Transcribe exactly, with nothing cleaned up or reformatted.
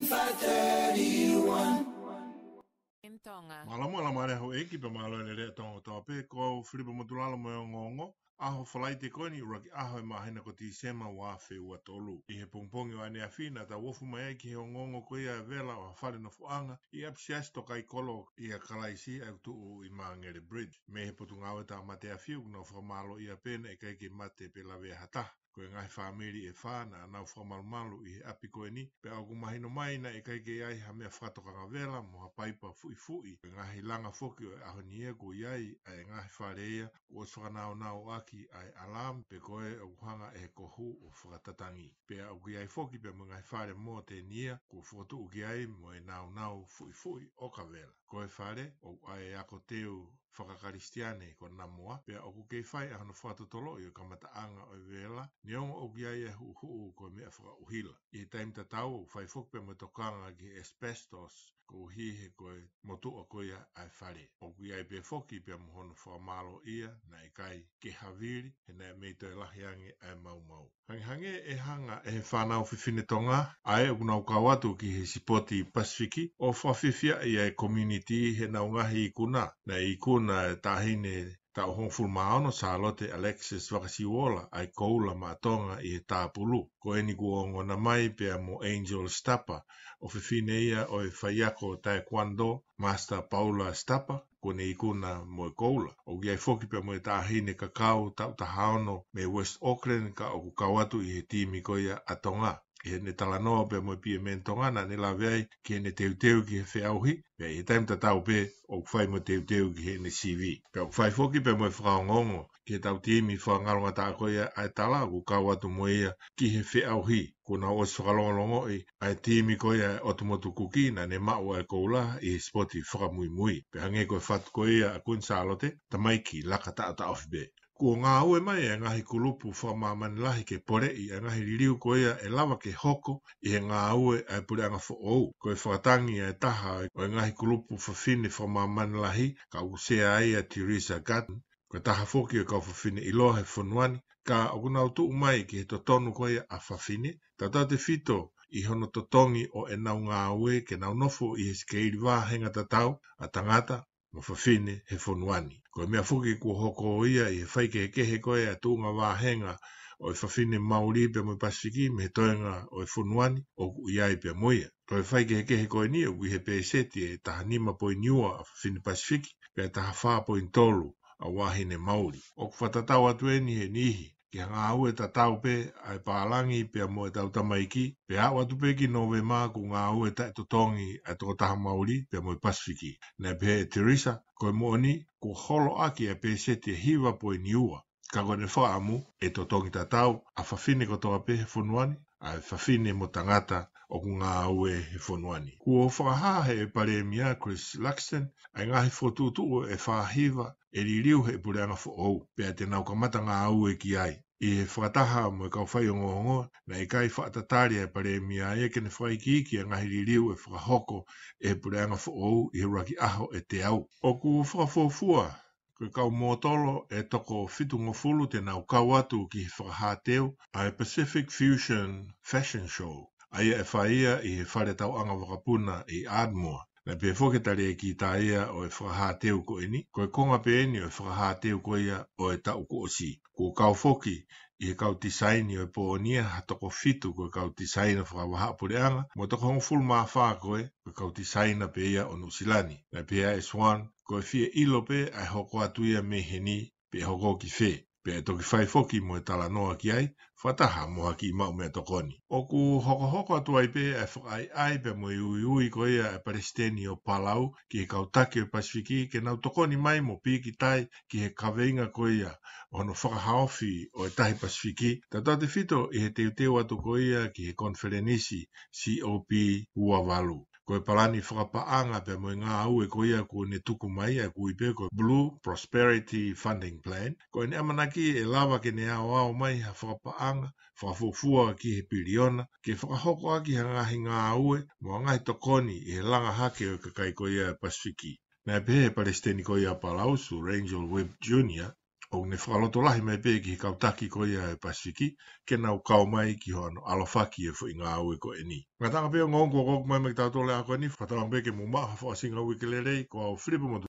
five thirty-one. M Tonga. Mālō mo e mālō e houʻeiki pea mālō e lelei ʻa Tonga kotoa pē, ko au Filipa Motulalo mo e ongoongo, ʻaho Falaite ko eni ʻuluaki ʻaho e māhina ko Tīsema ua afe ua tolu. ʻI he pongipongi ʻo ʻaneafi naʻa tau ofi mai ai ki he ongoongo ko ia e vela ʻo ha fale nofoʻanga ʻi ʻapisiasi Tokaikolo ʻia Kalaisi ʻa ia ʻoku tuʻu ʻi Māngere Bridge. Mei he Potungāue Tāmate Afi ʻoku nau fakamālōʻia pē naʻe ʻikai ke mate pe lavea ha taha. Ko e ngaahi fāmili ʻe fā naʻa nau fakamalumalu ʻi he ʻapi ko eni, pea ʻoku mahino mai naʻe ʻikai ke ʻi ai ha meʻa fakatokanga vela mo ha paipa fuʻifuʻi. Ko e ngaahi langa foki ʻo e ʻaho ni ia kuo ʻi ai ʻa e ngaahi fale ia kuo ʻosi fakanaunauʻaki ʻa e alarm, pe ko ē ʻoku hanga ʻe he kohu ʻo fakatatangi. Pea ʻoku ʻi ai foki pea mo e ngaahi fale mōteni ia kuo fokotuʻu ki ai mo e naunau fuʻifuʻi ʻoka vela. Ko e fale ʻoku ʻi ai e ako teu fakakalisitiane ko Namoa, pea ʻoku kei fai ʻa hono fakatotoloʻi ʻo e kamataʻanga ʻo e vela, neongo ʻoku ʻi ai e huʻuhuʻu ko e meʻa fakaʻuhila. ʻI he taimi tatau ʻoku fai foki pea mo e tokanga ki he asbestos, koeʻuhi he ko e motuʻa ko ia ʻa e fale. ʻOku ʻi ai pē foki pea mo hono fakamālōʻia, naʻe ʻikai ke havili, he naʻe mei toe lahi ange ʻa e maumau. Hangehangē ʻe hanga ʻe he fānau fefine Tonga ʻa ē ʻoku nau kau atu ki he sipoti Pasifiki ʻo fakafiefiaʻi ʻa e community heʻenau ngaahi ikuna. Naʻe ikuna e taʻahine taʻu hongofulu mā ono, Sālote Alexis Vakasiuola, ʻa e koula maʻa Tonga ʻi he tāpulu. Ko eni kuo ongona mai pea mo Angel Stapa, ʻofefine ia ʻo e faiako taekwondo, Master Paula Stapa, kuo ne ikuna mo e koula. ʻOku ʻi ai foki pea mo e taʻahine kakau taʻu taha ono mei West Auckland, ka ʻoku kau atu ʻi he timi ko ia ʻa Tonga. ʻI heʻene talanoa pea mo e P M N Tonga naʻa ne lave ai ki heʻene teuteu ki he feʻauhi, pea ʻi he taimi tatau pē ʻoku fai mo e teuteu ki heʻene C V. Pea ʻoku fai foki pea mo e fakaongoongo ki heʻetau timi fakangalongataʻa ko ia ʻa e tala ʻoku kau atu mo ia ki he feʻauhi. Kuo nau ʻosi fakalongolongoʻi ʻa e timi ko ia ʻa e ʻOtu Motu Kuki naʻa ne maʻu ʻa e koula ʻi he sipoti fakamuimui. Pea hangē ko e fatu ko ia ʻa Kuini Sālote, tamaiki laka taʻotaʻofi pē. Kuo ngāue mai e ngaahi kulupu fakamāmani lahi ke poleʻi ʻa e ngaahi liliu ko ia ʻe lava ke hoko ʻi he ngāue ʻa e puleʻanga foʻou. Ko e fakatangi ʻa e taha ʻo e ngaahi kulupu fafine fakamāmani lahi, ka ʻoku sea ai ʻa Teresa Gatton, ko e taha foki ʻo e kau fafine ʻiloa he fonua ni, ka ʻoku nau tuʻu mai ki he totonu ko ia ʻa fafine, tautautefito ʻi hono totongi ʻo ʻenau ngāue ke nau nofo ʻi he sikeili vāhenga tatau ʻa tangata mo fafine he fonua ni. Ko e meʻa foki kuo hoko ia ʻi he faikehekehe ko ia ʻa e tuʻunga vāhenga ʻo e fafine Mauli pea mo e Pasifiki mei he toenga ʻo e fonua ni, ʻoku ʻi ai pea mo ia. Ko e faikehekehe ko eni ʻoku ʻi he pēseti ʻe taha nima poini ua ʻa fafine Pasifiki, pea taha fā poini tolu ʻa e vahine Mauli. ʻOku fakatatau atu eni he niʻihi ki he ngāue tatau pē ʻa e pālangi pea mo ʻetau tamaiki, pea aʻu atu pē ki Nōvema kuo ngāue taʻetotongi ʻa e tokotaha Mauli pea mo e Pasifiki. Naʻe pehē ʻe Teresa, ko e moʻoni, kuo holo ʻaki ʻa e pēseti ʻe hiva poini ua. Ka ko ʻene fakaʻamu, ʻe totongi tatau ʻa fafine kotoa pē he fonua ni, ʻa e fafine mo tangata ʻoku ngāue he fonua ni. Kuo fakahā ʻe he Palēmia Chris Luxon ʻa e ngaahi fokotuʻutuʻu ʻe fā hiva ʻe liliu ʻe he puleʻanga foʻou, pea te nau kamata ngāue ki ai. ʻI he fakataha mo e kau faiongoongo, naʻe ʻikai fakatatali ʻa e Palēmia ia ke ne fakaikiiki ʻa e ngaahi liliu ʻe fakahoko ʻe he puleʻanga foʻou ʻi he ʻuluaki ʻaho ʻe teau. ʻOku fakafuofua ko e kau mōtolo ʻe toko fitungofulu te nau kau atu ki he fakahāteu ʻa e Pacific Fusion Fashion Show, ʻa ia ʻe fai ia ʻi he fale tauʻanga vakapuna ʻi Ardmore. Naʻe pehē foki ʻe he talēkita ia ʻo e fakahāteu ko eni, ko e konga pē eni ʻo e fakahāteu ko ia ʻo e taʻu kuo ʻosi. Kuo kau foki ʻi he kau tisaini ʻo e pō ni ia ha toko fitu ko e kau tisaina fakavahaʻapuleʻanga, mo e toko hongofulu mā fā ko ē ko e kau tisaina pē ia ʻo Nuʻusila ni. Naʻe pehē ʻe Swan, ko e fie ʻilo pē ʻa e hoko atu ia mei heni, pe ʻe hoko ki fē, pea ʻe toki fai foki mo e talanoa ki ai, fakataha mo ha kiʻi maʻu meʻatokoni. ʻOku hokohoko atu ai pē ʻa e fakaʻaiʻai pea mo e uiui ko ia ʻa e Palesiteni ʻo Palau ki he kau taki ʻo e Pasifiki ke nau tokoni mai mo pīkitai ki he kaveinga ko ia ʻo hono fakahaofi ʻo e tahi Pasifiki, tautautefito ʻi he teuteu atu ko ia ki he konifelenisi C O P ua valu. Ko e palani fakapaʻanga pea mo e ngāue ko ia kuo ne tuku mai ʻa ia ʻoku ui pē ko e Blue Prosperity Funding Plan, ko ʻene ʻamanaki ʻe lava ke ne aoao mai ha fakapaʻanga fakafuofua ki he piliona, ke fakahoko ʻaki ha ngaahi ngāue mo ha ngaahi tokoni ʻi he langa hake ʻo e kakai ko ia ʻa e Pasifiki. Naʻe pehē ʻe he Palesiteni ko ia ʻa Palau, Sir Randall Webb Junior, ʻOku ne fakalotolahi mai pē ki he kau taki ko ia ʻa e Pasifiki, ke nau kau mai ki hono ʻalofaki e foʻi ngāue ko eni. Ngataʻanga pē ongoongo kuo ʻoku mai mai ki tautolu ʻa e ako ni, fakatauange pē ke mou maʻu ha fakaʻosinga uike lelei, ko au Filipe Motu.